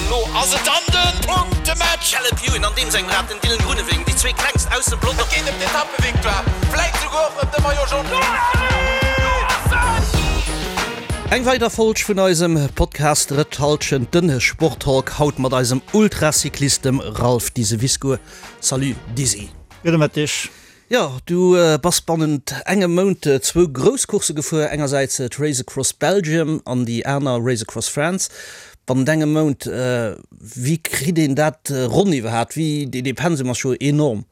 An elo ass et dann de Punktematch! Caleb Ewan an deem sengem Rad, den Dylan Groenewegen, déi zwee klengst aus dem Pelotong. Et geet ëm d'Etappevictoire, vläit souguer och ëm de Maillot Jaune. Eng weider Folg vun eisem Podcast Drëtt Halschent, den Sporttalk, haut mat eisem Ultracyclist, dem Ralph Diseviscourt. Salut Dizzy. Gudde Mëtteg. Jo, du bass bannent engem Mount zwou grouss Coursse gefuer, engersäits d'Race Across Belgium an déi aner Race Across France. Bannent engem Mount, wéi kritt een dat ronn iwwerhaapt? Wéi, dee Pensum ass jo enorm.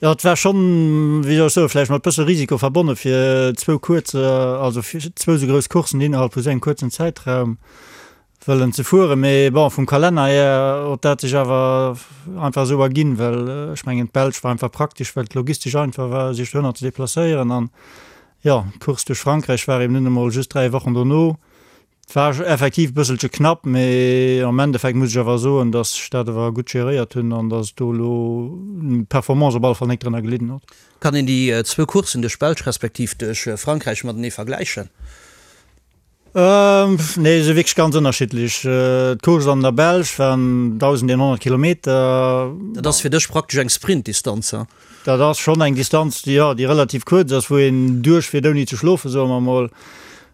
Jo, et war schonn, wéi soll ech soen, vläicht mat bësse Risiko verbonne fir zwou kuerz, also fir zwou esou grouss Courssen innerhalb vu sou engem kuerzen Zäitraum wëllen ze fueren, mee bon, vum Kalenner hier huet dat sech awer einfach esou erginn, well ech mengen d'Belsch war einfach praktesch, well et logistesch einfach war sech dohinner ze deplacéieren an jo, d'Course duerch Frankräich war eben nun emol just 3 Wochen dono. Et war effektiv e bësselche knapp, mee am Endeffekt muss ech awer soen, datt ech dat awer gutt geréiert hunn an datt do elo d'Performance op alle Fall nik drënner gelidden huet. Kann een déi zwou Courssen duerch d'Belsch respektiv duerch Frankräich matenee vergläichen? Nee, se wierklech ganz ënnerschiddlech. D'Course an der Belsch waren 1.100 Kilometer. Dat ass fir dech praktesch eng Sprintdistanz, he? Dat ass schonn eng Distanz, déi, jo, déi relativ kuerz ass, wou een duerchfiert ouni ze schlofen, soe mer emol.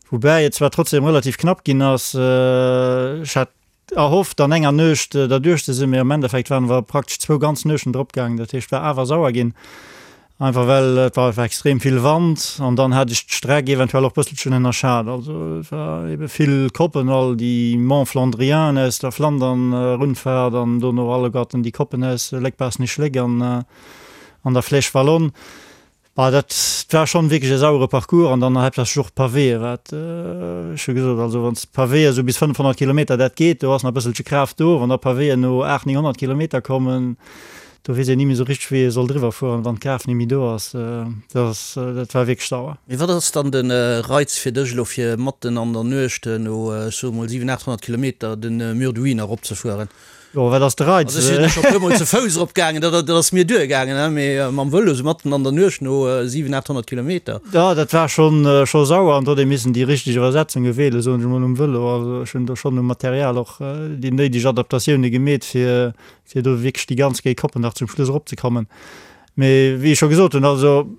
Woubäi et zwar trotzdem relativ knapp ginn ass. Ech hat erhofft an enger Nuecht derduerch ze sinn, mee am Endeffekt waren mer praktesch zwou ganz Nuechten drop gaangen. Dat heescht, war awer sauer ginn, einfach well et war einfach extrem vill Wand an dann hat ech d'Streck eventuell och bësselchen ënnerschat. Also et war ebe vill Koppen, all déi Monts Flandriens aus der Flandern Rundfahrt an dono alleguerten déi Koppen aus Léck-Baaschtnech-Léck an an der Flèche Wallonne. Bah, dat war schonn wierklech e sauere Parcours an dann haaptsächlech och d'Pavéë, wat ech hu gesot, also wann s d'Pavéë sou bis 500 Kilometer, dat geet, do ass nach e bësselche Kraaft do. Wann da Pavéen no 800, 900 Kilometer kommen, do weess een ni méi sou richteg, wéi ee soll driwwer fueren, wann d'Kraaft ni méi do ass. Dat ass, dat war wierklech sauer. Mee wat ass dann de Reiz fir dech elo, fir matten an der Nuecht no, ech soe mol 700, 800 Kilometer de Mur de Huy nach eropzefueren? Jo, wat ass de Reiz? Also ech sinn scho puer mol ze Fouss erop gaangen, dat dat ass mir duer gaangen, he, mee mam Vëlo sou matten an der Nuecht no 700, 800 Kilometer. Jo, dat war schonn scho sauer an do huet ee missen déi richteg Iwwersetzunge wielen, soen ech emol, um Vëlo. Also ech hunn do schonn um Material och déi néideg Adaptatioune gemeet, fir fir do wierklech déi ganz géi Koppen nach zum Schluss eropzekommen. Mee wéi ech scho gesot hunn, also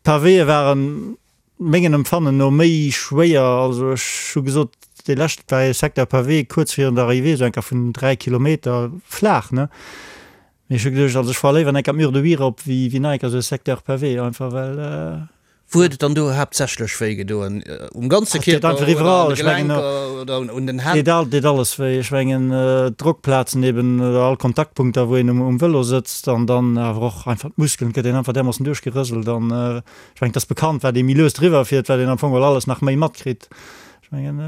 d'Pavéë waren Mengen Empfannen no méi schwéier. Also ech hu gesot, dee leschte war ee Secteur pavé kuerz virun der Arrivée, esou enker vun 3 Kilometer flaach, ne? Mee ech hu geduecht, also ech fuere léiwer enker d'Mur de Huy erop wéi wéi nach enker esou e Secteur pavé, einfach well. Wou huet et dann do haaptsächlech wéi gedoen? Um ganze Kierper oder an de Gelenker oder un den Hänn? Deet deet alles wéi. Ech mengen d'Drockplazen eben oder all Kontaktpunkter wou een um Vëlo sëtzt an dann awer och einfach d'Muskelen, et gëtt een einfach därmoossen duerchgerëselt an Ech mengen, et ass bekannt, wat ee méi lues driwwer fiert, wat een am Fong geholl alles nach méi matkritt. Ech mengen,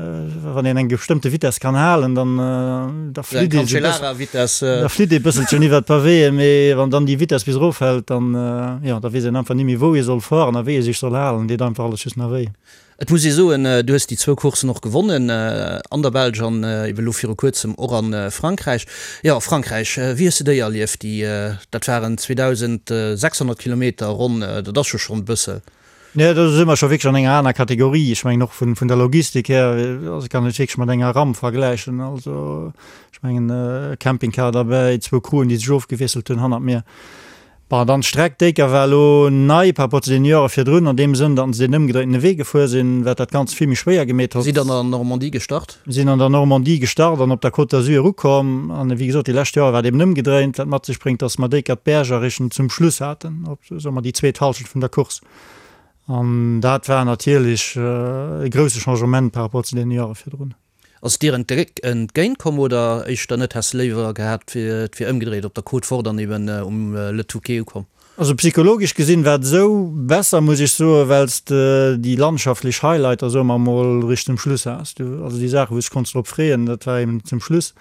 wann een eng bestëmmte Vitess kann halen, dann da flitt ee sou bëssen, da flitt ee bësselchen iwwer d'Pavéeën, mee wann dann déi Vitess bis erofhält, dann, jo, da weess een einfach ni méi, wou ee soll fueren a wéi ee sech soll halen. Deet einfach alles just nach wéi. Et muss ee soen, du hues déi zwou Courssen och gewonnen, an der Belsch an ebe lo viru kuerzem och a Frankräich. Jo, Frankräich, wéi hues de déi erlieft? Déi, dat waren 2.600 Kilometer ronn, dat ass jo schonn e bëssel. Nee, do si mer scho wierklech an enger aner Kategorie. Ech mengen och vun der Logistik här, also kann et wierklech mat enger Ramp vergläichen. Also ech mengen Campingcar derbäi, zwou Crewen, déi sech ofgewiesselt hunn hannert mir. Bon, dann d'Streck décker war elo nei par rapport zu deene Joere virdrun, an deem Sënn, datt se deen ëmgedréintene Wee gefuer sinn, wat dat Ganzt vill méi schwéier gemeet hott. Sidd an der Normandie gestart? Mir sinn an der Normandie gestart an op der Côte d'Azur ukomm. An wéi gesot, déi lescht Joer war et eben ëmgedréint, wat mat sech bréngt, datt mer décker d'Berger Richtung zum Schluss haten, op, soe mer, déi zweet Hallschent vun der Course. An dat war natierlech e grousse Changement par rapport zu deene Joere virdrun. Ass et dir entgéint komm oder éischter net? Häss de léiwer gehat et wier ëmgedréit op der Côte Forte an eben um Le Touquet ukomm? Also psychologesch gesinn war et esou besser muss ech soen, well s de déi landschaftlech Highlighter soe mer mol Richtung Schluss has. Du also déi Saachen wou s de konns drop freeën, dat war eben zum Schluss.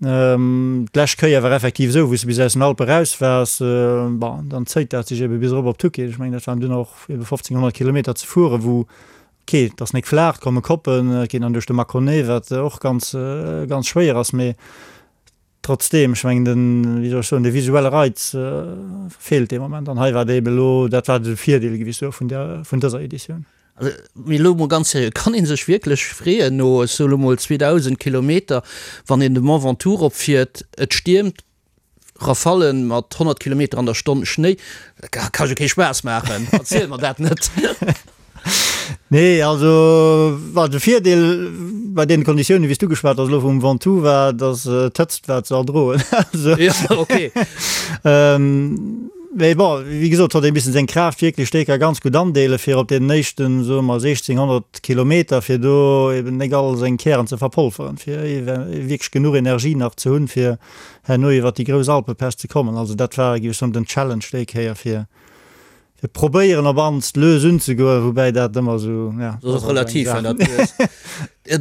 D'lescht Kéier war effektiv esou, wou s de bis aus den Alpe raus waars, bon dann zéit dat sech ebe bis erop op Touquet. Ech mengen dat waren dunn och ebe 1500 Kilometer ze fueren, wou Ok, et ass nek flaach, et komme Koppen, et geet dann duerch de Mâconnais, wat och ganz, ganz schwéier ass, mee trotzdeem, ech mengen den, wéi soll ech soen, de visuelle Reiz feelt dee Moment an hei war et eben elo, dat war de Virdeel, géif ech soen, vun där, vun dëser Editioun. Also, mee elo mol ganz seriö, kann ee sech wierklech freeën no, ech soe lo mol 2.000 Kilometer, wann een de Mont Ventoux eropfiert, et stiermt, Rafallen mat 100 Kilometer an der Stonn, Schnéi, dat ka jo kee Spaass maachen, erziel mer dat net. Nee, also war de Virdeel bei deene Konditiounen, wéi s du geschwat has elo vum Ventoux, war, datt d'Hëtzt war ze erdroen. Also, Ja, okay. Mee bon, wéi gesot, huet ee missen seng Kraaft wierklech déi ka ganz gutt andeelen, fir op deenen éischten, soe mer, 1600 Kilometer, fir do eben nek all seng Kären ze verpolferen, fir wierklech genuch Energie nach ze hunn, fir herno iwwert déi grouss Alpepäss ze kommen. Also dat war, géif ech soen, den Challenge déi Kéier, fir fir probéieren op anst lues unzegoen, woubäi dat ëmmer esou, ja, Dat ass och relativ, wenn dat lues.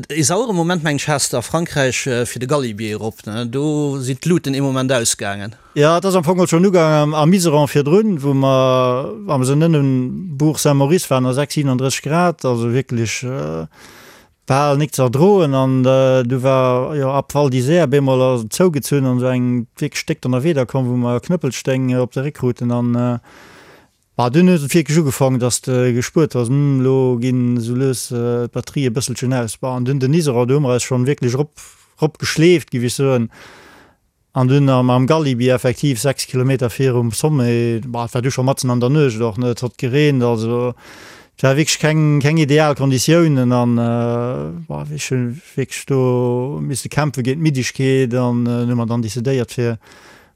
E sauere Moment, mengen ech, has de a Frankräich fir de Galibier erop, ne? Do sinn d'Luten ee Moment ausgaangen. Jo, et ass am Fong och schonn ugaangen am Iseran virdrun, wou mer, wa mer sinn ënnen Bourg Saint-Maurice waren, a 6, 37 Grad, also wierklech bal nik ze erdroen. An du war jo ab Val d'Isère bemol ass et zougezunn an esou eng wierklech déck Donnerwieder komm, wou mer Knëppelsteng op de Réck kruten. An bah, dunn huet et wierklech ugefaangen, dass de gespuert hues, hm, elo ginn esou lues d'Batterië bësselchen aus. Bah, an dunn den Iseran, do hu mer eis schonn wierklech erop, erop geschleeft, géif ech soen. An dunn am Galibier effektiv 6 Kilometer virum Sommet, bah, et war du scho matzen an der Nuecht och, ne, et hott gereent, also et war wierklech keng, keng ideal Konditiounen an, bah, ech hu wierklech do misse kämpfe géint d'Middegkeet an hu mer dann decidéiert fir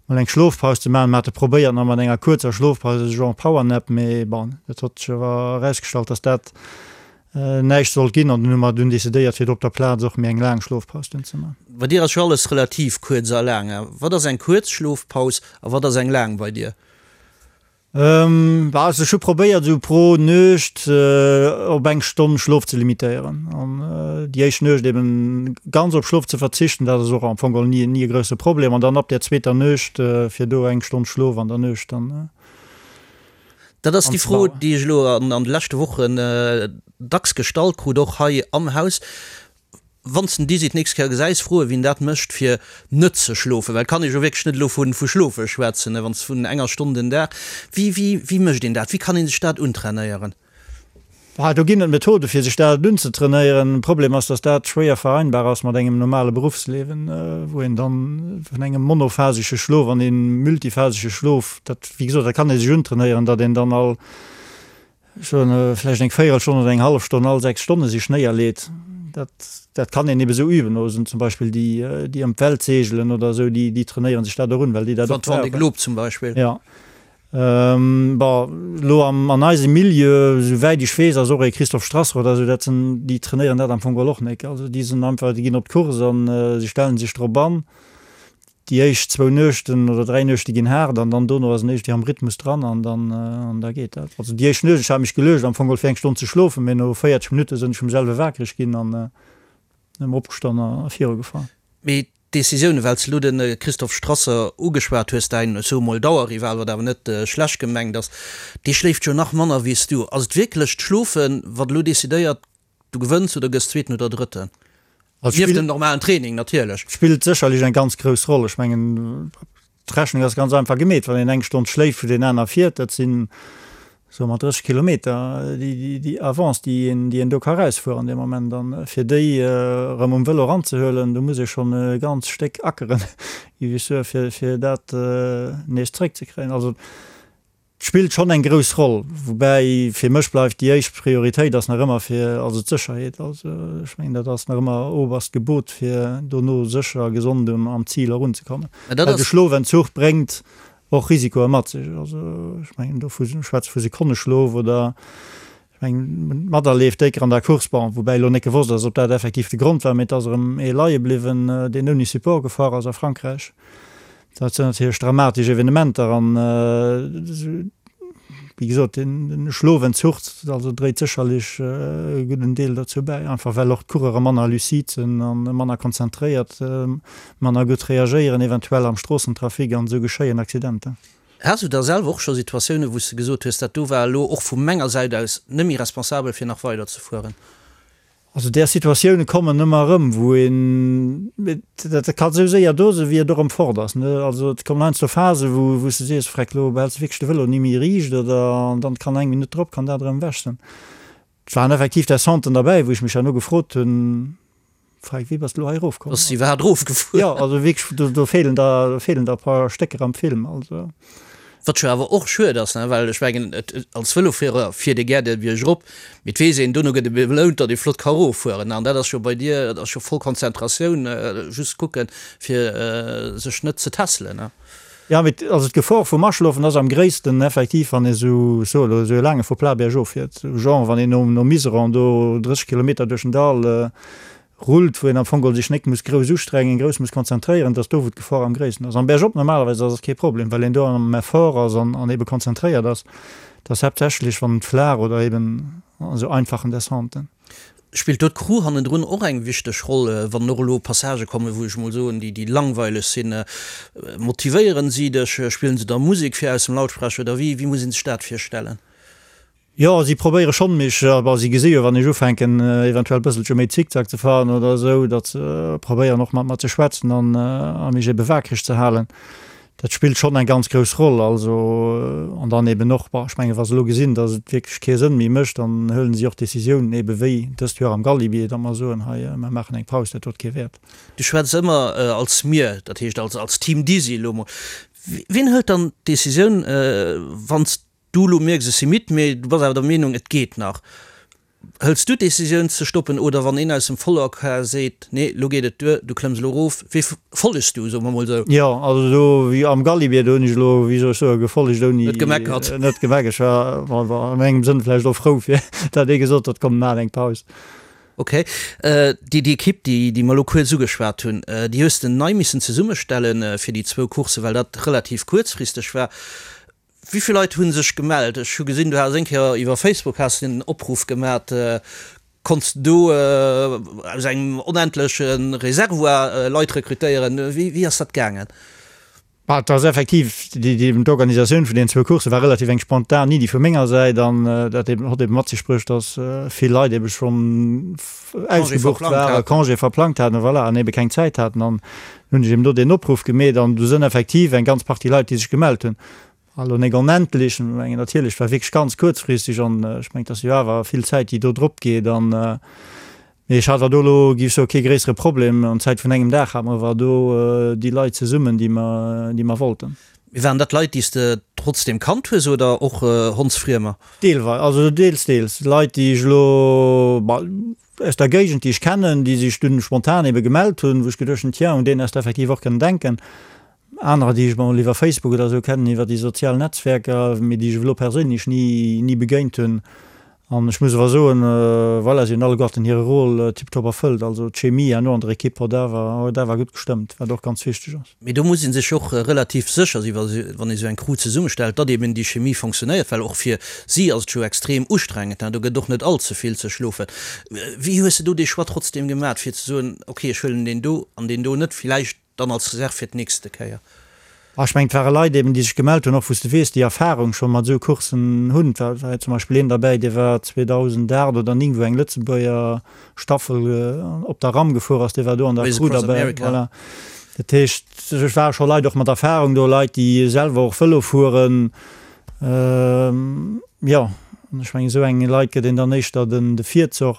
mol eng Schlofpaus ze maachen. Mer hate probéiert nach mat enger kuerzer Schlofpaus, esou genre Powernap, mee bon, et hott sech awer erausgestallt, dass dat näischt sollt ginn an dunn hu mer dunn decidéiert fir do op der Plaz och méi eng laang Schlofpaus dunn ze man. Bei dir ass jo alles relativ kuerz a laang. Wat ass eng kuerz Schlofpaus a wat ass eng laang bei dir? Bah, also ech hu probéiert esou pro Nuecht op eng Stonn Schlof ze limitéieren an déi éischt Nuecht eben ganz op Schlof ze verzichten, dat ass och am Fong geholl ni ni e grousse Problem an dann ab där zweeter Nuecht fir do eng Stonn Schlof an der Nuecht dann. Dat ass déi Fro, déi ech elo an de leschte Wochen dacks gestallt krut, och hei am Haus. Wann s de den Dizzy d'nächst Kéier gesäis, fro e wien dat mécht, fir net ze schlofen. Well et kann ee jo wierklech net elo vu schlofe schwätzen, wann s vun enger Stonn den Dag. Wéi, wéi, wéi mécht een dat? Wéi kann ee sech dat untrainéieren? Ah, do ginn et Methode fir sech dat unzetrainéieren. De Problem ass, datt dat schwéier vereinbar ass mat engem normale Beruffsliewen, wou een dann vun engem monophasesche Schlof an ee multiphasesche Schlof, dat, wéi gesot, dat kann ee sech untrainéieren, datt een dann all, ech soen, vläicht eng Véierelstonn oder eng hallef Stonn all 6 Stonne sech néierleet. Dat, dat kann een ebe sou üben. Oder zum Beispill déi, déi ëm d'Welt seegelen oder esou, déi, déi trainéiere sech dat och un, well déi dat och brauchen. Vendée Globe zum Beispill. Jo. Bon, elo an eisem Milieu, esou wäit ech weess, ass och ee Christophe Strasser oder esou, dat sinn, déi trainéieren dat am Fong geholl och nek. Also déi sinn einfach, déi ginn op d'Course an se stellen sech drop an. Déi éischt zwou Nuechten oder 3 Nuechte ginn haart an dann dono ass en éischt am Rhythmus dran an dann, an da geet dat. Also déi éischt Nuecht, ech hat mech geluecht am Fong geholl fir eng Stonn ze schlofen, mee no 40 Minutte sinn ech vum selwe wakereg ginn an erëm opgestan a virugefahr. Mee D'Decisioune, well s de elo de Christophe Strasser ugeschwat hues, däin, ech soe mol, Dauerrival, wat awer net schlecht gemengt ass, dee schléift jo nach manner wéi s du. Ass et wierklech d'Schlofen, wat elo decidéiert, du gewënns oder gëss Zweeten oder Drëtten? Nieft dem normalen Training natierlech. Spillt sécherlech eng ganz grouss Roll. Ech mengen, D'Rechnung ass ganz einfach gemeet, wann een eng Stonn schléift, wou deen aner fiert, dat sinn, soe mer, 30 Kilometer, déi Avance, déi een, déi een do ka erausfueren dee Moment. An fir déi erëm um Vëlo eranzehuelen, do muss ee schonn e ganz Stéck ackeren, géif ech soen, fir, fir dat nees zréckzekréien. Also Et spillt schonn eng grouss Roll, woubäi fir mech bleift déi éischt Prioritéit ass nach ëmmer fir, also d'Sécherheet. Also ech mengen dat ass nach ëmmer oberst Gebot fir dono sécher a gesond um am Zil erunzekommen. Well de Schlofentzuch bréngt och Risikoe mat sech. Also ech mengen do vu schwätze vu Sekonneschlof oder ech mengen materleeft décker an der Course, bon woubäi elo net gewosst ass ob dat effektiv de Grond war, mee et ass erëm ee leie bliwwen deen ouni Support gefuer ass a Frankräich. Dat sinn natierlech dramatesch Evenementer an, wéi gesot, den Schlofentzuch also dréit sécherlech e gudden Deel dozou bäi, einfach well och d'Coureure manner lucide sinn a manner konzentréiert, manner gutt reagéieren eventuell am Stroossentrafic an esou geschéien Accidenter. Has du da selwer och scho Situatiounen, wou s de gesot hues, dat do war elo och vu menger Säit aus net méi responsabel fir nach weider ze fueren? Also där Situatioune kommen ëmmer erëm, wou een, dat ka sou séier do sinn, wéi et och erëm fort ass, ne. Also et kommen heiansdo Phasen, wou wou s de sees, Freck, elo behälls de wierklech de Vëlo ni méi riicht oder, an dann kann eng Minutt drop kann dat erëm ewech sinn. Et waren effektiv Descenten derbäi, wou ech mech herno gefrot hunn, Frag, wéi bass de elo hei erofkomm? Ass si iwwerhaapt erofgefuer? Jo, also wierklech, do, do feelen der, do feelen der e paar Stécker am Film, also. Wat jo awer och schued ass, ne, well ech mengen, et, als Vëlofuerer fiert ee gär de Bierg erop, mee et weess een, dono gëtt ee belount, datt ee flott ka eroffueren. An dat ass jo bei dir, dat ass jo voll Konzentratioun, just kucken, fir sech net ze tässelen, ne? Jo, mee also d'Gefor vum Aschlofen ass am gréissten effektiv, wann ee sou, ech soe elo, esou e laange Faux-plat bergof fiert, sou genre wann een no no Miseron do 30 Kilometer duerch den Dall rullt, wou een am Fong geholl sech nek muss grouss ustrengen, grouss muss konzentréieren, dass do wou d'Gefor am gréissten ass. Am Bergop normalerweis ass et kee Problem, well een do am Effort ass an an ebe konzentréiert ass. Et ass haaptsächlech wann et flaach oder eben an esou einfachen Descenten. Spillt do d'Crew hannendrun och eng wichteg Roll, wann och elo Passagë kommen, wou ech mol soen, déi déi langweileg sinn? Motivéieren si dech? Spillen se da Musek fir aus dem Lautsprecher oder wéi wéi muss een sech dat virstellen? Jo, si probéiere schonn mech, bon, si gesi jo wann ech ufänken eventuell bësselche méi Zickzack ze fahren oder esou, datt se probéieren och mat mer ze schwätzen an a mech ebe waakreg ze halen. Dat spillt schonn eng ganz grouss Roll. Also, an dann eben och, bon, ech mengen, wa se elo gesinn, datt et wierklech kee Sënn méi mécht, dann huelen si och Décisiounen, ebe wéi dëst Joer am Galibier, datt mer soen, hei, mer maachen eng Paus, dat huet kee Wäert. Du schwätz ëmmer als mir, dat heescht als als Team Dizzy elo mol. Wien hëlt dann d'Décisioun, wann s du elo mierks, ech si midd, mee du bass awer der Meenung, et geet nach? Hëls du d'Decisioun ze stoppen oder wann een aus dem Follower-Car seet, nee lo geet et duer, du klëmms elo erof, wee follegs du, soe mer mol sou? Jo, also do wéi am Galibier, do hunn ech elo, wéi soll ech soen, gefollegt ouni. Net gemeckert. Net gemeckert. Ech war an engem Sënn vläicht och frou fir dat ee gesot huet, komm maachen eng Paus. Ok. Déi déi Ekipp, déi déi mer elo kuerz ugeschwat hunn, déi hues de nei missen zesummestellen fir déi zwou Courssen, well dat relativ kuerzfristeg war. Wéi vill Leit hu sech gemellt? Ech hu gesinn, du has eng Kéier iwwer Facebook has de en Opruff gemat. Konnts de do aus engem onendleche Reservoir Leit rekrutéieren? Wéi ass dat gaangen? Bah, et ass effektiv, d'Organisatioun vun deenen zwou Coursse war relativ eng spontan Iddi vu menger Säit an dat eben hott eben mat sech bruecht, datt vill Leit ebe schonn ausgebucht waren, Congé verplangt haten, voilà, an ebe keng Zäit haten. An hunn ech eben do deen Opruff gemeet an do sënn effektiv eng ganz Partie Leit, déi sech gemellt hunn. Elo nek onendlech, ech mengen natierlech, war wierklech ganz kuerzfristeg an ech mengen, et ass jo awer vill Zäit, déi do drop geet an, mee ech hat awer do elo, géif ech soen, kee gréissere Problem. An Zäit vun engem Dag hate mer awer do déi Leit zesummen, déi mer, déi mer wollten. Mee waren dat Leit, déi s de trotzdem kannt hues oder och Hondsfriemer? Deelweis, also deels, deels Leit, déi ech elo, aus der Géigend, déi ech kennen, déi sech dunn spontan ebe gemellt hunn, wou ech geduecht hunn, tiens, un deen häss de effektiv och kënnen denken. Anerer, déi ech mol iwwer Facebook oder esou kennen, iwwer déi sozial Netzwerker, mee déi ech elo perséinlech ni, ni begéint hunn. An ech muss awer soen, voilà, si hunn alleguerten hire Rôle tiptop erfëllt. Also d'Chemie herno an der Ekipp huet awer, huet awer gutt gestëmmt, wat och ganz wichteg ass. Mee do muss ee sech och relativ sécher sinn, wann ee sou eng Crew zesummestellt, datt eben déi Chemie fonctionnéiert, well och fir si ass et jo extrem ustrengend, do gëtt och net all ze vill ze schlofen. Wéi hues de do dee Choix trotzdem gemat, fir ze soen, ok, ech huelen deen do an deen do net, villäicht dann als Reserve fir d'nächste Kéier? Ech mengen, et ware Leit eben, déi sech gemellt hunn, och wou s de weess, déi Erfarung scho mat esou Courssen hunn. Et war zum Beispill een derbäi, dee war 2008 oder 9, wou eng Lëtzebuerger Staffel op der Ram gefuer ass, dee war do an der Crew derbäi. Voilà. Dat heescht, et ware scho Leit och mat Erfarung do, Leit, déi selwer och Vëlo fueren. Jo, an ech mengen, esou enge Leit gëtt een dann éischter de Virzoch.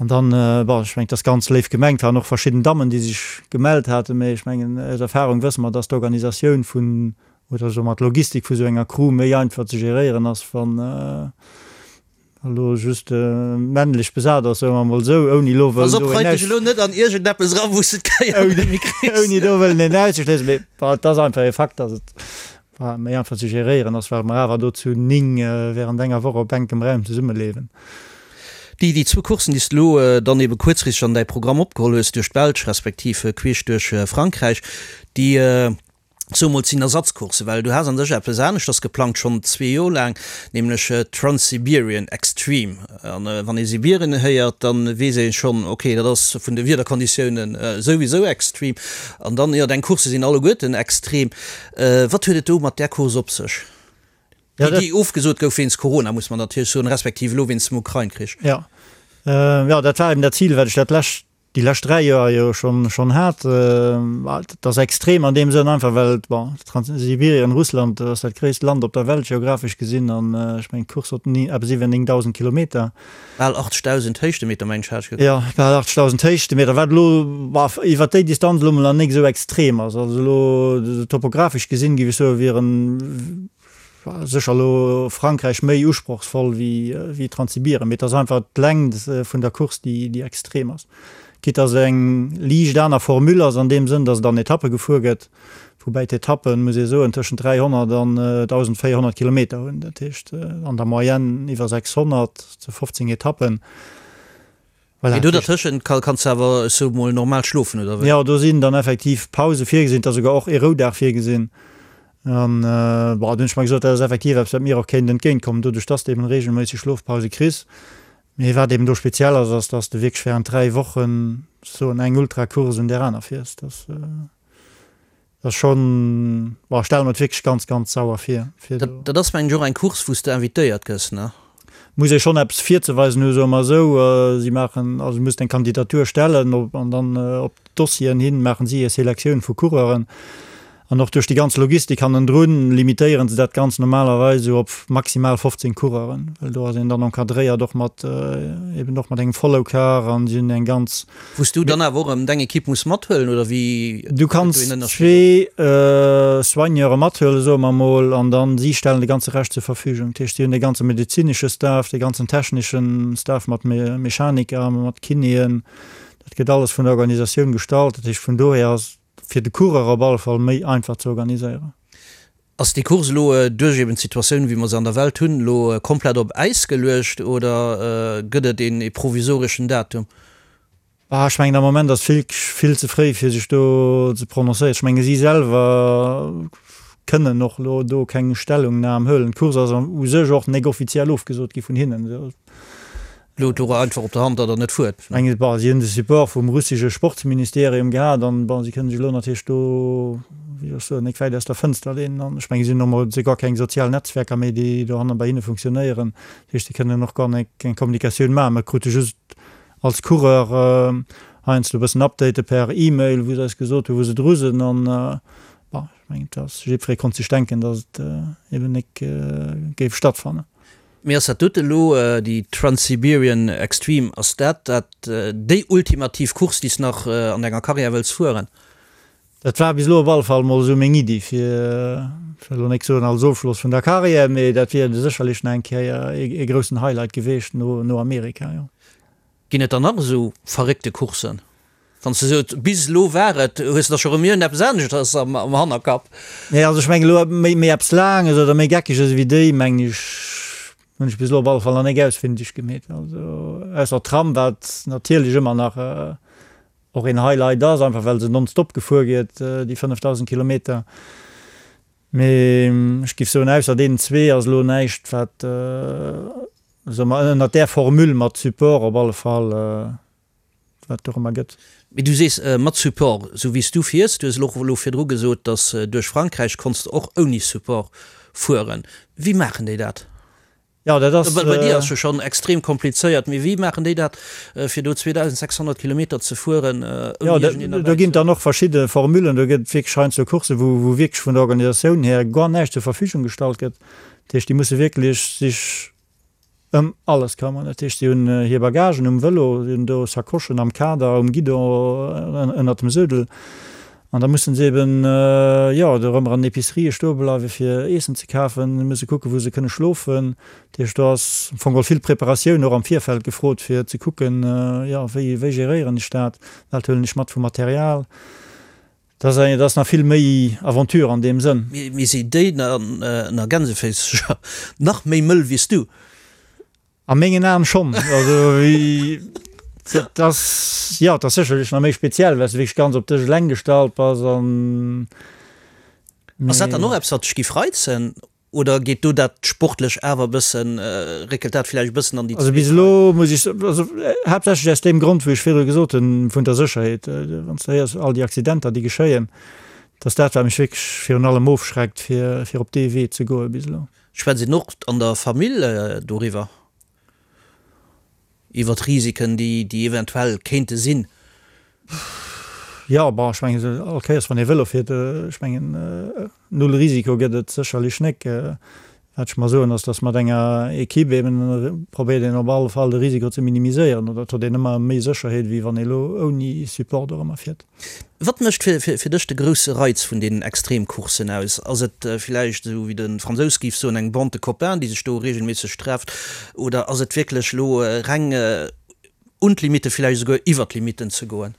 An dann, bon, ech mengen, et ass ganz léif gemengt, waren och verschidden Dammen, déi sech gemellt haten, mä ech mengen, aus Erfahrung wësse mer, dass d'Organisatioun vun, oder soe mer d'Logistik vu sou enger Crew méi einfach ze geréieren ass, wann elo just männlech besat ass, soe mer emol esou, ouni elo wëllen do een aus. Elo net an iergendeppes eran, wou s de d'Kéier net méi kriss. Ouni do wëllen een auszeschléissen, mä bon, et ass einfach e Fakt, dass et méi einfach ze geréieren ass, well mer awer do zu 9 während enger Woch op enkem Raum zesummelewen. Déi déi zwou Courssen, déi s de elo dann ebe kuerzfristeg an däi Programm opgeholl hues, duerch d'Belsch respektiv queesch duerch Frankräich, déi soe mol, sinn Ersatzcourssen, well du has an sech eppes aneschters geplangt, schonn zwee Joer laang, nämlech d'Trans-Siberian Extreme. An wann ee Sibirien héiert, da weess ee schonn, ok, dat ass vun de Wiederkonditiounen souwisou extrem. An dann, jo, deng Coursse sinn alleguerten extrem. Wat huet et do mat där Course op sech, déi ofgesot gouf wéinst Corona, muss mer natierlech soen, respektiv elo wéinst dem Ukrain-Krich? Jo, jo, dat war eben dat Zil, wat ech dat lescht. Déi lescht 3 Joer jo schonn schonn hat. Et ass extrem an deem Sënn einfach well, bon, Transsibirien, Russland ass dat gréisst Land op der Welt geographesch gesinn an ech mengen d'Course huet eppes iwwer 9.000 Kilometer. Bal 80.000 Héichtemeter mengen ech hat ech gekuckt. Jo, bal 80.000 Héichtemeter, wat elo, bon, iwwer déi Distanz elo mol nach nik esou extrem ass. Also elo topographesch gesinn, géif ech soen, wieren Sécher elo Frankräich méi usprochsvoll wéi Transsibirien, mee et ass einfach d'Längt vun der Course, déi extrem ass. Quitte dass et eng liicht aner Formule ass an deem Sënn, dass et an Etappe gefuer gëtt, woubäi d'Etappen, muss ee soen, tëschent 300 an 1.400 Kilometer hunn, dat heescht an der Moyenne iwwer 600 zu 15 Etappen. Voilà, Mee do dertëschent kanns de awer, ech soe mol, normal schlofen, oder wéi? Jo, do sinn dann effektiv Pause virgesinn, et ass souguer och ee Roudag virgesinn. An, bon, do hunn ech mer gesot, dat ass effektiv eppes, wat mir och kéint entgéintkommen, doduerch dass de eben reegelméisseg Schlofpause kriss. Mee wat eben do speziell ass, ass, dass de wierklech während 3 Wochen, soen, eng Ultracourse un där aner fiers. Dat. Dat ass schonn, bon, ech stelle mer et wierklech ganz, ganz sauer vir, fir do. Dat ass mengen ech och eng Course wou s de invitéiert gëss, ne? Muss ee schonn eppes virzeweisen hu, soe mer esou. Si maachen, also du muss deng Kandidatur stellen op, an dann op d'Dossieren hin maachen si hir Selektioun vu Coureuren. An och duerch déi ganz Logistik hannendrun limitéieren se dat Ganzt normalerweis esou op maximal 15 Coureuren, well do ass een dann encadréiert och mat, eben och mat engem Follow-Car an si hunn eng ganz. Wou s du dann awer och erëm deng Ekipp muss mathuelen, oder wéi Du kanns zwee Soigneure mathuelen, soe mer emol, an dann si stellen de ganze Rescht zur Verfügung. Dat heescht, si hunn de ganze medezinesche Staff, de ganzen technesche Staff mat Mechaniker, mat Kinéen, dat gëtt alles vun der Organisatioun gestallt. Dat heescht, vun dohier ass et fir de Coureur op alle Fall méi einfach ze organiséieren. Ass déi Course elo duerch eben d'Situatioun, wéi mer se an der Welt hunn, elo komplett op Äis geluecht oder gëtt et een provisoreschen Datum? Ah, ech mengen am Moment ass vill, vill ze fréi fir sech do ze prononcéieren. Ech menge si selwer kënnen och elo do keng Stellungnam huelen. D'Course ass u sech och nek offiziell ofgesot gi vun hinnen. Elo do einfach op der Hand, datt der net fuert. Ech mengen, bon, si hunn de Support vum russesche Sportsministerium gehat an, bon, si kënnen sech elo natierlech do, wéi soll ech soen, nek wäit aus der Fënster leenen. An ech mengen, si hunn och mol souguer keng sozial Netzwerker méi, déi dohanne bei hinne funktionéieren. Dat heescht, si kënnen och gar nek eng Kommunikatioun maachen. Mer krute just als Coureur heiansdo e bëssen Update per E-Mail, wou se eis gesot hunn, wou se dru sinn. An, bon, ech mengen, et ass, jiddweree konnt sech denken, datt et eben nek géif stattfannen. Mee ass dat dote elo, déi Trans-Siberian Extreme, ass dat dat déi ultimativ Course, déi s nach an denger Karriär wëlls fueren? Dat war bis elo op alle Fall mol esou meng Iddi, fir, ech wëll elo nek soen als Ofschloss vun der Karriär, mee dat wier sécherlech nach eng Kéier ee groussen Highlight geweecht no Amerika, jo. Ginn et dann nach esou verréckte Courssen? Wann s de sot, bis elo war et, hues de da scho rëm iergendeppes aneschters am Hannerkapp? Nee, also ech mengen elo méi, méi eppes Laanges oder méi Geckeges ewéi déi, mengen ech, hunn ech bis elo op alle Fall nach nek ausfindeg gemeet. Also ausser d'Tram, wat natierlech ëmmer nach och een Highlight ass, einfach well se nonstop gefuer gëtt, déi 5.000 Kilometer. Mee ech géif soen, ausser deenen zwee ass elo näischt, wat, soe mer, ënnert där Formule mat Support op alle Fall, wat et dorëmmer gëtt. Mee du sees mat Support, esou wéi s du fiers, du hues elo och elo virdru gesot, datt duerch Frankräich konns de och ouni Support fueren. Wéi maachen déi dat? Jo, dat ass. Well bei dir ass jo schonn extrem komplizéiert, mee wéi maachen déi dat, fir do 2.600 Kilometer ze fueren ouni iergendeen derbäi ze hunn? Jo, do ginn et dann och verschidde Formulen. Do gëtt et wierklech heiansdo Courssen, wou wou wierklech vun der Organisatioun hier guer näischt zur Verfügung gestallt gëtt. Dat heescht, déi musse wierklech sech Ëm alles këmmern. Dat heescht, si hunn hir Bagagen um Vëlo, si hunn do Sacochen am Kader, um Guidon, ënnert dem Suedel. An da mussen se eben, jo, dorëmmer an den Epicerië stoe bleiwen, fir Eessen ze kafen. Si musse kucken, wou se kënne schlofen. Dat heescht, do ass am Fong geholl vill Preparatioun och am Virfeld gefrot, fir ze kucken, jo, wéi, wéi geréieren ech dat, wat huelen ech mat vu Material. Dat ass eng, dat ass nach vill méi Aventure an deem Sënn. Mee si déi ënner Gänseféissercher nach méi mëll wéi s du? A mengen Aen schonn. Also wéi, dat ass, jo, dat ass sécherlech nach méi speziell, well s de wierklech ganz op dech eleng gestallt bass an. Ass dat dann och eppes, wat dech giff reizen? Oder geet do dat sportlech awer e bëssen, réckelt dat villäicht e bëssen an déi Also bis elo muss ech, also haaptsächlech aus deem Grond, wou ech virdru gesot hunn, vun der Sécherheet, wann s de héiers all déi Accidenter, déi geschéien, dat ass dat, wat mech wierklech virun allem ofschreckt, fir, fir op dee Wee ze goe bis elo. Schwätzt een och an der Famill doriwwer, iwwer d'Risiken, déi, déi eventuell kéinte sinn? Jo, bon, ech mengen, all Kéiers wann ee Vëlo fiert, ech mengen, null Risiko gëtt et sécherlech nek. Wat ech mer soen, ass, datt mat enger Equipe eben probéiert een op alle Fall de Risiko ze minimiséieren oder et huet een ëmmer méi Sécherheet, wéi wann ee lo ouni Support dorëmmer fiert. Wat mécht fir dech de grousse Reiz vun deenen Extremcourssen aus? Ass et villäicht, esou wéi de Fransous géif soen, eng Bande de copains, déi sech do reegelméisseg trefft, oder ass et wierklech elo reng un d'Limitte, villäicht esouguer iwwer d'Limitten ze goen?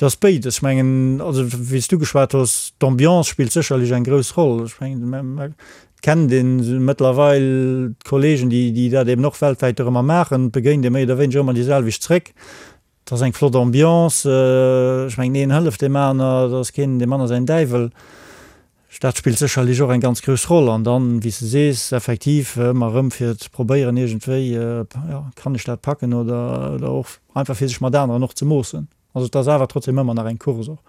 Et ass béides. Ech mengen, also wéi s du geschwat hues, d'Ambiance spillt sécherlech eng grouss Roll. Ech mengen, et kennt ee mëttlerweil d'Kollegen, déi déi dat eben och weltwäit dorëmmer maachen, et begéint ee méi oder wéineger ëmmer déi selwecht zréck. Et ass eng flott Ambiance. Ech mengen, een hëlleft deem aner, et ass keen deem aner säin Däiwel. Dat spillt sécherlech och eng ganz grouss Roll. An dann, wéi s de sees, effektiv ëmmer erëm fir ze probéieren iergendwéi, jo, kann ech dat packen oder oder och einfach fir sech mat aneren och ze moossen. Also et ass awer trotzdem ëmmer nach eng Course och.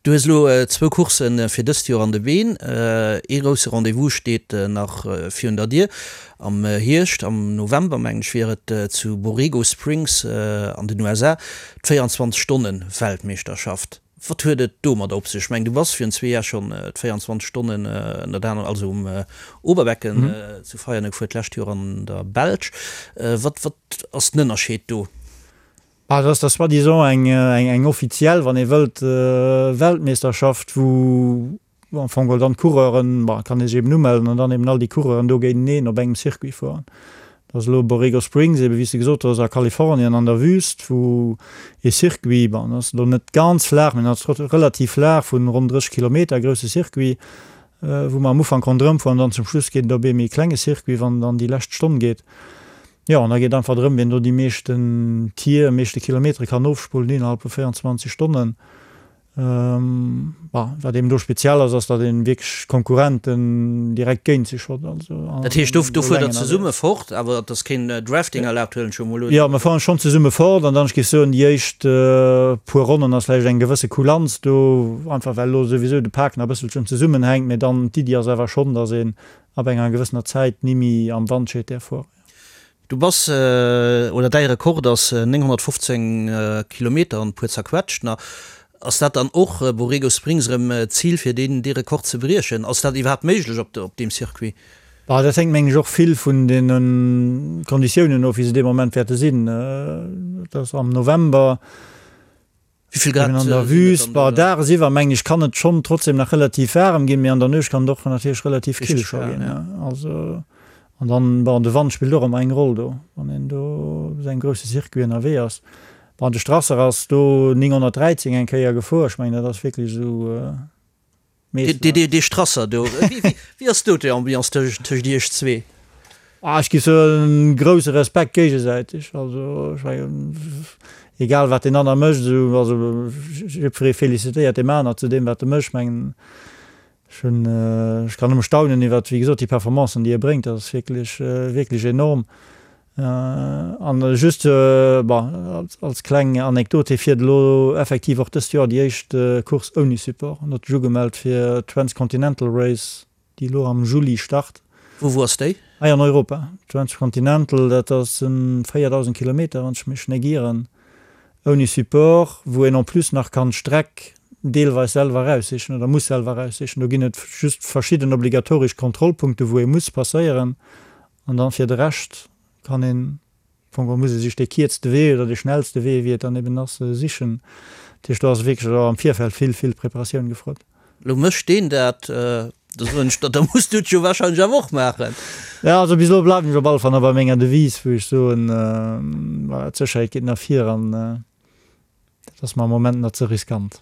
Du hues elo zwou Coursse fir dëst Joer an de Been. Ee grousse Rendez-vous steet nach virun der Dier. Am Hierscht, am November mengen ech, wier et zu Borrego Springs an den USA d' 24 Stonnen Weltmeeschterschaft. Wat huet et domadder op sech? Ech mengen, du bass virun zwee Jar schonn d'24 Stonnen ënnert anerem, also um Oberbecken zu Veianen gefuer, d'lescht Joer an der Belsch. Wat wat ass den Ënnerscheed do? Ah, dat ass da soi-disant eng eng offiziell, wann ee wëllt, Weltmeeschterschaft, wou am Fong geholl dann d'Coureuren, bon, et kann ee sech eben umellen an dann eben all déi Coureuren do géinteneen op engem Circuit fueren. Dat ass elo Borrego Springs, eben wéi s de gesot hues, a Kalifornien an der Wüst, wou ee Circuit, bon, dat ass elo net ganz flaach, mee dat ass relativ flaach, vun ronn 30 Kilometer, grousse Circuit, wou mer am Ufank ronderëm fueren an dann zum Schluss geet et op ee méi klenge Circuit, wann et an déi lescht Stonn geet. Jo, an da geet einfach drëm, wien do déi meeschten Tier, meeschte Kilometere kann ofspullen innerhalb vu 24 Stonnen. Bon, wat eben do speziell ass, ass datt een wierklech Konkurrenten direkt géint sech hott. Also Dat heescht, do do fuert der zesumme fort, awer et ass keen Drafting erlaabt, huelen ech jo emol un? Jo, mer fueren schonn zesumme fort an dann, ech géif soen, déi éischt puer Ronnen ass vläicht eng gewësse Kulanz do, einfach well elo souwisou de Pak nach e bësselchen zesummenhänkt, mee dann d'Iddi ass awer schonn, datt een ab enger gewëssener Zäit ni méi am Wandscheet däerf fueren. Du bass, oder däi Rekord ass 915 Kilometer an e puer zerquetscht. Na, ass dat dann och Borrego Springs erëm d'Zil fir deen dee Rekord ze briechen? Ass dat iwwerhaapt méiglech op op deem Circuit? Bah, dat hänkt mengen ech och vill vun deene Konditiounen of wéi se dee Moment wäerte sinn. Et ass am November. Wéi vill Grad Eben an der Wüst, bah, dagesiwwer mengen ech kann et schonn trotzdem nach relativ waarem ginn, mee an der Nuecht kann et och natierlech relativ kill scho ginn, ja. Also, an dann, bon, de Wand spillt och ëmmer eng Roll do, wann een do op esou engem grousse Circuit ënnerwee ass. Bon, de Strasser ass do 913 eng Kéier gefuer, ech mengen dat ass wierklech esou. Dee Strasser do, wéi ass do d'Ambiance tëscht iech zwee? Ah, ech géif soen, grousse Respekt géigesäiteg. Also ech mengen, egal wat deen aner mécht, esou, also jiddweree felicitéiert deem aner zu deem wat e mécht. Ech mengen, ech hunn, ech kann nëmme staunen iwwert, wéi gesot, déi Performancen déi e bréngt, dat ass wierklech, wierklech enorm. An just, bon, als kleng Anekdot, hie fiert elo effektiv och dëst Joer déi éischt Course ouni Support. En huet sech ugemellt fir d'Transcontinental Race, déi elo am Juli start. Wou, wou ass déi? Hei an Europa. Transcontinental, dat ass en 4.000 Kilometer, wann ech mech net ieren, ouni Support, wou een en plus nach kann d'Streck deelweis selwer eraussichen oder muss selwer eraussichen. Do ginn et just verschidden obligatoresch Kontrollpunkte, wou ee muss passéieren. An dann fir de Rescht kann een, am Fong geholl muss ee sech dee kierzte Wee oder dee schnellste Wee, wéi et dann eben ass, sichen. Dat heescht, do ass wierklech och am Virfeld vill, vill Preparatioun gefrot. Lo mécht deen dat, da soen ech der, da muss du et jo wahrscheinlech awer och maachen. Jo, also bis elo bleiwen ech op alle Fall nach bei menger Devise, wou ech soen, voilà, d'Sécherheet geet nach vir an. Dat ass mer am Moment nach ze riskant.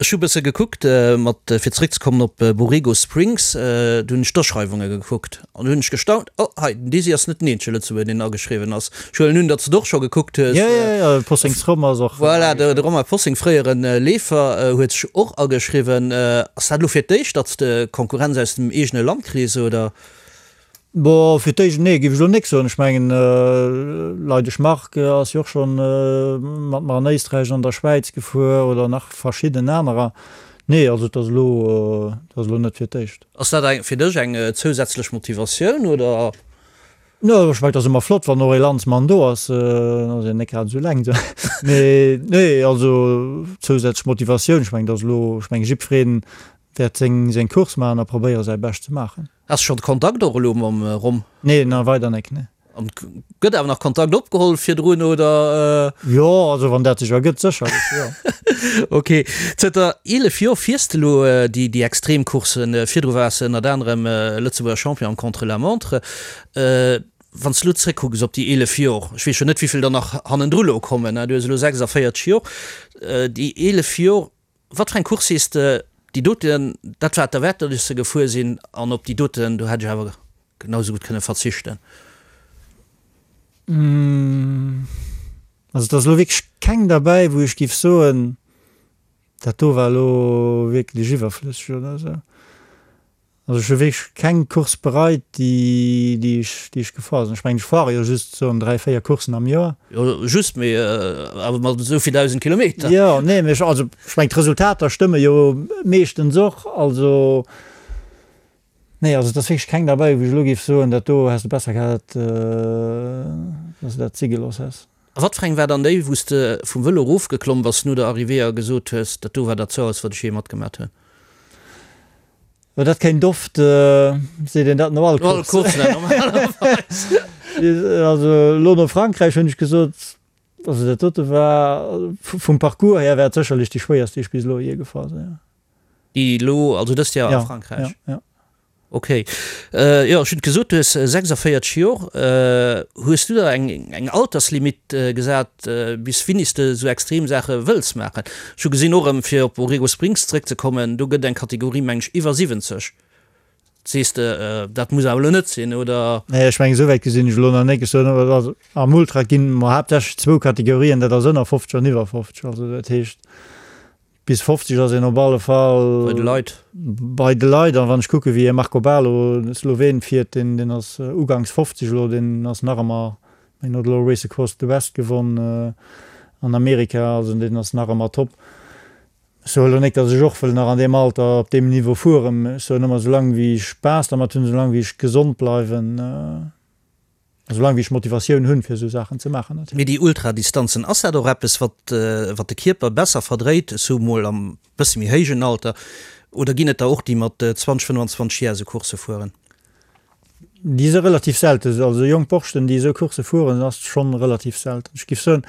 Ech hu bësse gekuckt, mat, fir zeréckzekommen op Borrego Springs, do hunn ech d'Aschreiwunge gekuckt an do hunn ech gestaunt, oh hei, den Desi ass net den eenzege Lëtzebuerger, deen ageschriwwen ass. Ech huelen un, datt s de et och scho gekuckt hues. Jo, jo, jo, de Possing's Rom ass och. Voilà, de Romain Possing, fréiere Leefer, huet sech och ageschriwwen. Ass dat elo fir d'éischt, datt s de Konkurrenz aus dem eegene Land kriss, oder? Bon, fir d'éischt, nee, géif ech elo nik soen. Ech mengen, Leidesch Marc ass jo och scho mat mer an Éisträich an der Schwäiz gefuer oder nach verschidden anerer. Nee, also et ass elo, et ass elo net fir d'éischt. Ass dat eng, fir dech eng zousätzlech Motivatioun, oder? No, ech mengen, et ass ëmmer flott, wann och ee Landsmann do ass. En ass jo net grad esou eleng do. Mee nee, also zousätzlech Motivatioun, ech mengen, et ass elo, ech mengen, jiddweree wäert seng, seng Course maachen a probéiere säi Bescht ze maachen. Has schonn Kontakt och elo mam Rom? Nee, nach weider nek, nee. An gëtt awer nach Kontakt opgeholl virdrun, oder? Jo, also wann dat sech ergëtt, sécherlech, jo. Ok. Zënter 11 Joer fiers de elo déi déi Extremcourssen. Virdru waars de ënnert anerem Lëtzebuerger Champion am Contre-la-montre. Wann s de elo zréckkucks op déi 11 Joer, ech weess jo net wéivill der nach hannendru elo kommen, du hues elo 46 Joer, déi 11 Joer, Wat fir eng Course sees de, déi doten, dat war et derwäert, datt ech se gefuer sinn, an op déi doten, do hätt ech awer genau esou gutt kënne verzichten? Also et ass elo wierklech keng derbäi, wou ech géif soen, dat do war elo wierklech iwwerflësseg oder esou. Also ech hu wierklech keng Course bereit, déi, déi ech, déi ech gefuer sinn. Ech mengen, ech fuere jo just soen 3, 4 Courssen am Joer. Jo, just, mee awer mat esou vill 1.000 Kilometer. Jo, nee, mee ech, also ech mengen, d'Resultater stëmme jo meeschtens och. Also, nee, also et ass wierklech keng derbäi, wou ech elo géif soen, dat do häss de besser gehat, dass de dat si gelooss häss. A wat fir eng war dann déi, wou s de vum Vëlo erofgeklomm bass no der Arrivée a gesot hues, dat do war dat Zauerst, wat ech jee matgemat hunn? Jo, dat kéint oft, seet een dat no all Course. No all Course, normalerweis. Also elo no Frankräich hunn ech gesot, also dat dote war, vum Parcours hier war et sécherlech déi schwéierst, déi ech bis elo jee gefuer sinn, jo. Déi elo, also dëst Joer a Frankräich? Jo, jo, jo. Ok. Jo, ech hunn et gesot, du hues 46 Jor. Hues du der eng eng Alterslimit gesat, bis wéini s de esou extrem Saache wëlls maachen? Ech hu gesinn, och erëm fir op Borrego Springs zeréckzekommen, do gëtt eng Kategorie, meng ech, iwwer 70. Sees de, dat muss awer elo net sinn, oder? Nee, ech mengen, esou wäit gesinn ech elo nach net. Ech soen awer, also am Ultra ginn mer haaptsächlech zwou Kategorien, dat ass ënner 50 an iwwer 50. Also dat heescht, Bis 50 ass een op alle Fall bei de Leit. Bei de Leit. An wann ech kucke wéi e Marko Baloh, de Sloween, fiert, deen deen ass uganks 50 elo, deen ass nach ëmmer, deen huet elo Race Across the West gewonn an Amerika, also deen ass nach ëmmer top. Ech soe elo net, datt ech och wëll nach an deem Alter op deem Niveau fueren, ech soen ëmmer, soulaang wéi ech Spaass dermat hunn, soulaang wéi ech gesond bleiwen. Soulaang wéi ech Motivatioun hunn, fir esou Saachen ze maachen natierlech. Mee déi Ultradistanzen, ass dat och eppes, wat wat de Kierper besser verdréit, ech soe mol am bësse méi héijen Alter, oder ginn et der och, déi mat 20, 25 Jar esou Coursse fueren? Déi si relativ selten. Also jonk Borschten, déi esou Coursse fueren, ass schonn relativ selten. Ech géif soen,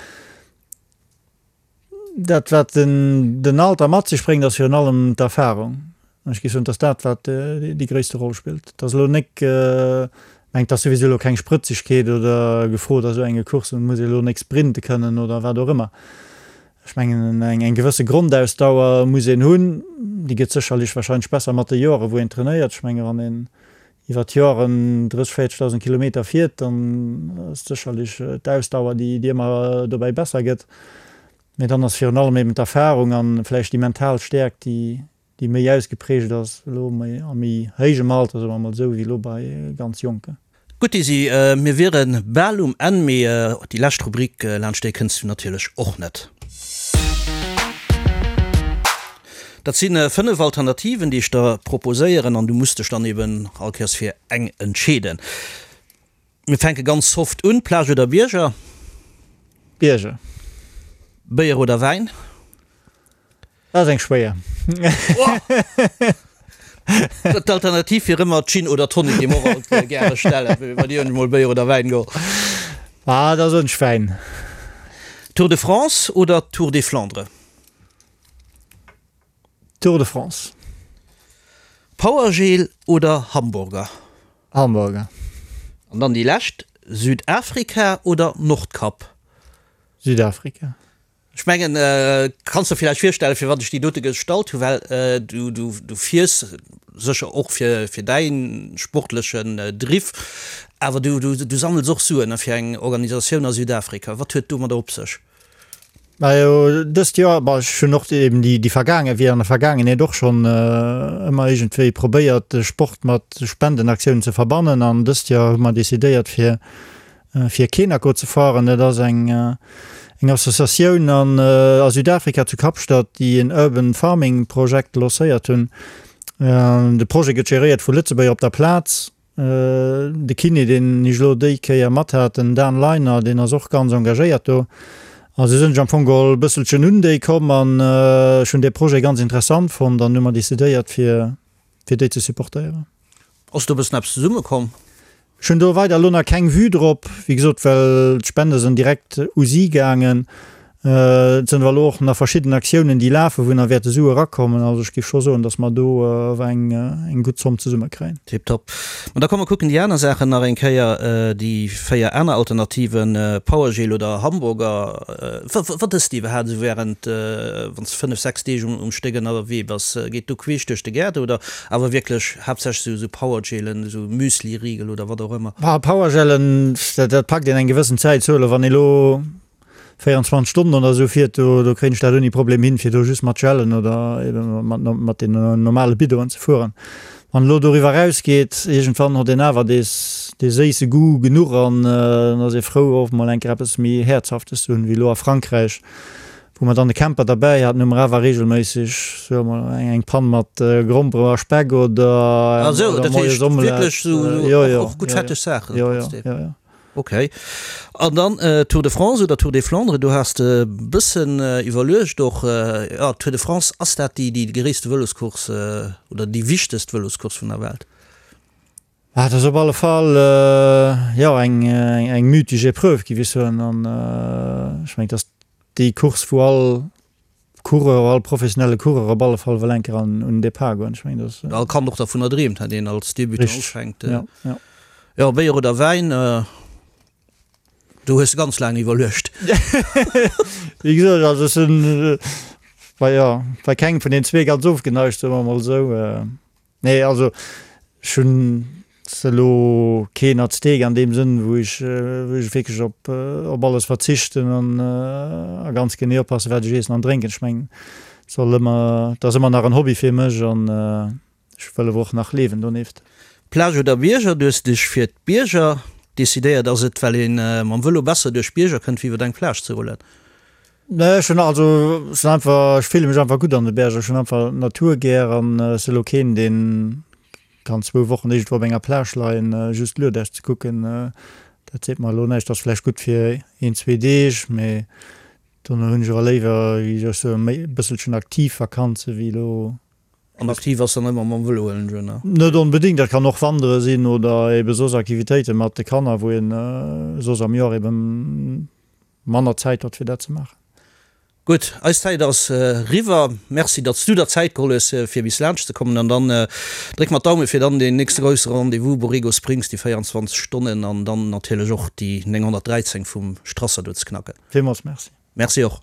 Dat wat den Alter mat sech bréngt, ass virun allem d'Erfahrung. An ech géif soen, et ass dat, wat déi gréisste Roll spillt. Et ass elo nek, mengt, et ass souwisou elo keng Sprëtzegkeet oder gefrot a sou enge Courssen, et muss ee elo nek sprinte kënnen oder wat och ëmmer. Ech mengen, eng gewësse Grondausdauer muss een hunn. Déi gëtt sécherlech wahrscheinlech besser mat de Joren, wou een trainéiert. Ech menge wann een iwwer d'Joren 30, 40.000 Kilometer fiert, dann ass sécherlech d'Ausdauer, déi ëmmer dobäi besser gëtt. Mee dann ass virun allem eben d'Erfarung a vläicht déi mental Stäerkt, déi méi ausgeprägt ass elo a méi héijem Alter, soe mer emol esou, wéi elo bei ganz Jonken. Gutt Desi, mir wiere bal um Enn, mee déi lescht Rubrik, laanscht déi kënns du natierlech och net. Dat si 5 Alternativen, déi ech der proposéieren an du muss dech dann eben all Kéiers fir eng entscheeden. Mir fänke ganz soft un, Plage oder Bierger? Bierger. Béier oder Wäin? Dat ass eng schwéier. D'Alternativ wier ëmmer Gin oder Tonic, déi mer och alt gäre stellen, well dir hunn ech mol Béier oder Wäin geholl. Ah, da soen ech Wäin. Tour de France oder Tour des Flandres? Tour de France. Powergel oder Hamburger? Hamburger. An dann déi lescht, Südafrika oder Nordkap? Südafrika. Ech mengen, kanns der villäicht virstellen, firwat ech déi dote gestallt hu, well du, du, du fiers sécher och fir, fir däi sportlechen Driff, awer du, du, du sammels och Suen fir eng Organisatioun a Südafrika. Wat huet domadder op sech? Majo, dëst Joer, bon, ech hunn och eben déi, déi vergaange, wéi an der Vergaangenheet och schonn ëmmer iergendwéi probéiert, de Sport mat Spendenaktiounen ze verbannen an dëst Joer hu mer decidéiert, fir fir Kenako ze fueren. Dat ass eng eng Associatioun an a Südafrika zu Kapstadt, déi en Urban Farming Projekt lancéiert hunn. De Projet gëtt geréiert vu Lëtzebuerger op der Plaz. De Kiné, deen ech elo déi Kéier mat hat, den Dan Leiner, deen ass och ganz engagéiert do. A sou sinn ech am Fong geholl e bësselchen un déi komm an ech hunn dee Projet ganz interessant fonnt an hu mer decidéiert, fir fir déi ze supportéieren. Ass do e bëssen eppes zesummekomm? Ech hunn do weider elo nach keng Vue drop, wéi gesot, well d'Spende sinn direkt u si gaangen. Et sinn awer elo och nach verschidden Aktiounen, déi lafen, wou nach wäerte Sue erakommen. Also ech géif scho soen, datt mer do awer eng, eng gutt Zomm zesummekréien. Tiptop. Ma da komm mer kucken déi aner Saachen nach eng Kéier, déi 4 aner Alternativen, Powergel oder Hamburger. Wat ësst de iwwerhaapt esou während, wann s de 5, 6 Deeg um Stéck ënnerwee bass? Geet do queesch duerch de Gaart oder awer wierklech haaptsächlech esou Powergelen, esou Müsliriegel oder wat och ëmmer? Powergelen, dat packt een eng gewëssen Zäit. Sou elo wann ee lo 24 Stonnen oder esou fiert, do do kréien ech dat ouni Problem hin, fir do just mat Gellen oder ebe mat mat den normale Biddonen ze fueren. Wann elo doriwwer erausgeet, iergendwann hott een awer dees dee séisse Goût genuch an dann ass ee frou och mol eng Kéier eppes méi Häerzhaftes ze hunn, wéi elo a Frankräich, wou mer dann de Camper derbäi haten, hu mer awer reegelméisseg soe mer eng eng Pann mat Grompere a Speck oder Ah sou, dat moies heescht Omelette. wierklech sou Jo, jo, och gutt jo, jo, fetteg Saachen jo, jo, trotzdem. jo, jo. Ok. An dann Tour de France oder Tour des Flandres, do has de bëssen iwwerluecht och. Jo, Tour de France, ass dat déi déi gréisste Vëloscourse oder déi wichtegst Vëloscourse vun der Welt? Ah, dat ass op alle Fall, jo, eng eng mythesch Epreuve, géif ech soen. An ech mengen, et ass déi Course, wou all Coureur, all professionelle Coureur op alle Fall wëll eng Kéier an un den Depart goen. Ech mengen, dat ass. All Kand och dervunner dreemt, hat een als Debutant Richteg, ufänkt. ja, ja. Jo, Béier oder Wäin, do hues de ganz laang iwwerluecht. Wéi gesot, also ech sinn bei, jo, bei kengem vun den zwee ganz ofgeneigt, soe mer emol esou. Nee, also ech hunn elo keen Azteek an deem Sënn, wou ech wou ech wierklech op op alles verzichten an a ganz genee oppassen, wat ech iessen an drénken. Ech mengen, et soll ëmmer, et ass ëmmer nach en Hobby fir mech an ech wëll awer och nach liewen donieft. Plage oder Bierger, Du hues dech fir d'Bierger decidéiert. Ass et well ee mam Vëlo besser duerch d'Bierger kënnt, wéi iwwer eng Plage ze rullen? Nee, ech hunn also, ech sinn einfach, ech fille mech einfach gutt an de Berger. Ech hunn einfach d'Natur gär an ech si elo keen, deen kann zwou Wochen iergendwou op enger Plage leien, just Luedäch ze kucken. Dat seet mer elo näischt. Ass vläicht gutt fir een, zwee Deeg, mee dono hunn ech awer léiwer, wéi soll ech soen, méi e bësselchen aktiv Vakanze wéi elo. An aktiv ass dann ëmmer mam Vëlo, huelen ech un, ne? Net onbedéngt, dat kann och Wandere sinn oder ebe soss Aktivitéite mat de Kanner, wou een soss am Joer eben manner Zäit huet fir dat ze maachen. Gutt, eis Zäit ass eriwwer. Merci, datt s du der Zäit geholl hues, fir bis laanscht ze kommen. An dann dréck mer d'Daume fir dann deen nächste grousse Rendez-vous, Borrego Springs, déi 24 Stonnen an dann natierlech och déi 913 vum Strasser do ze knacken. Villmools Merci. Merci och.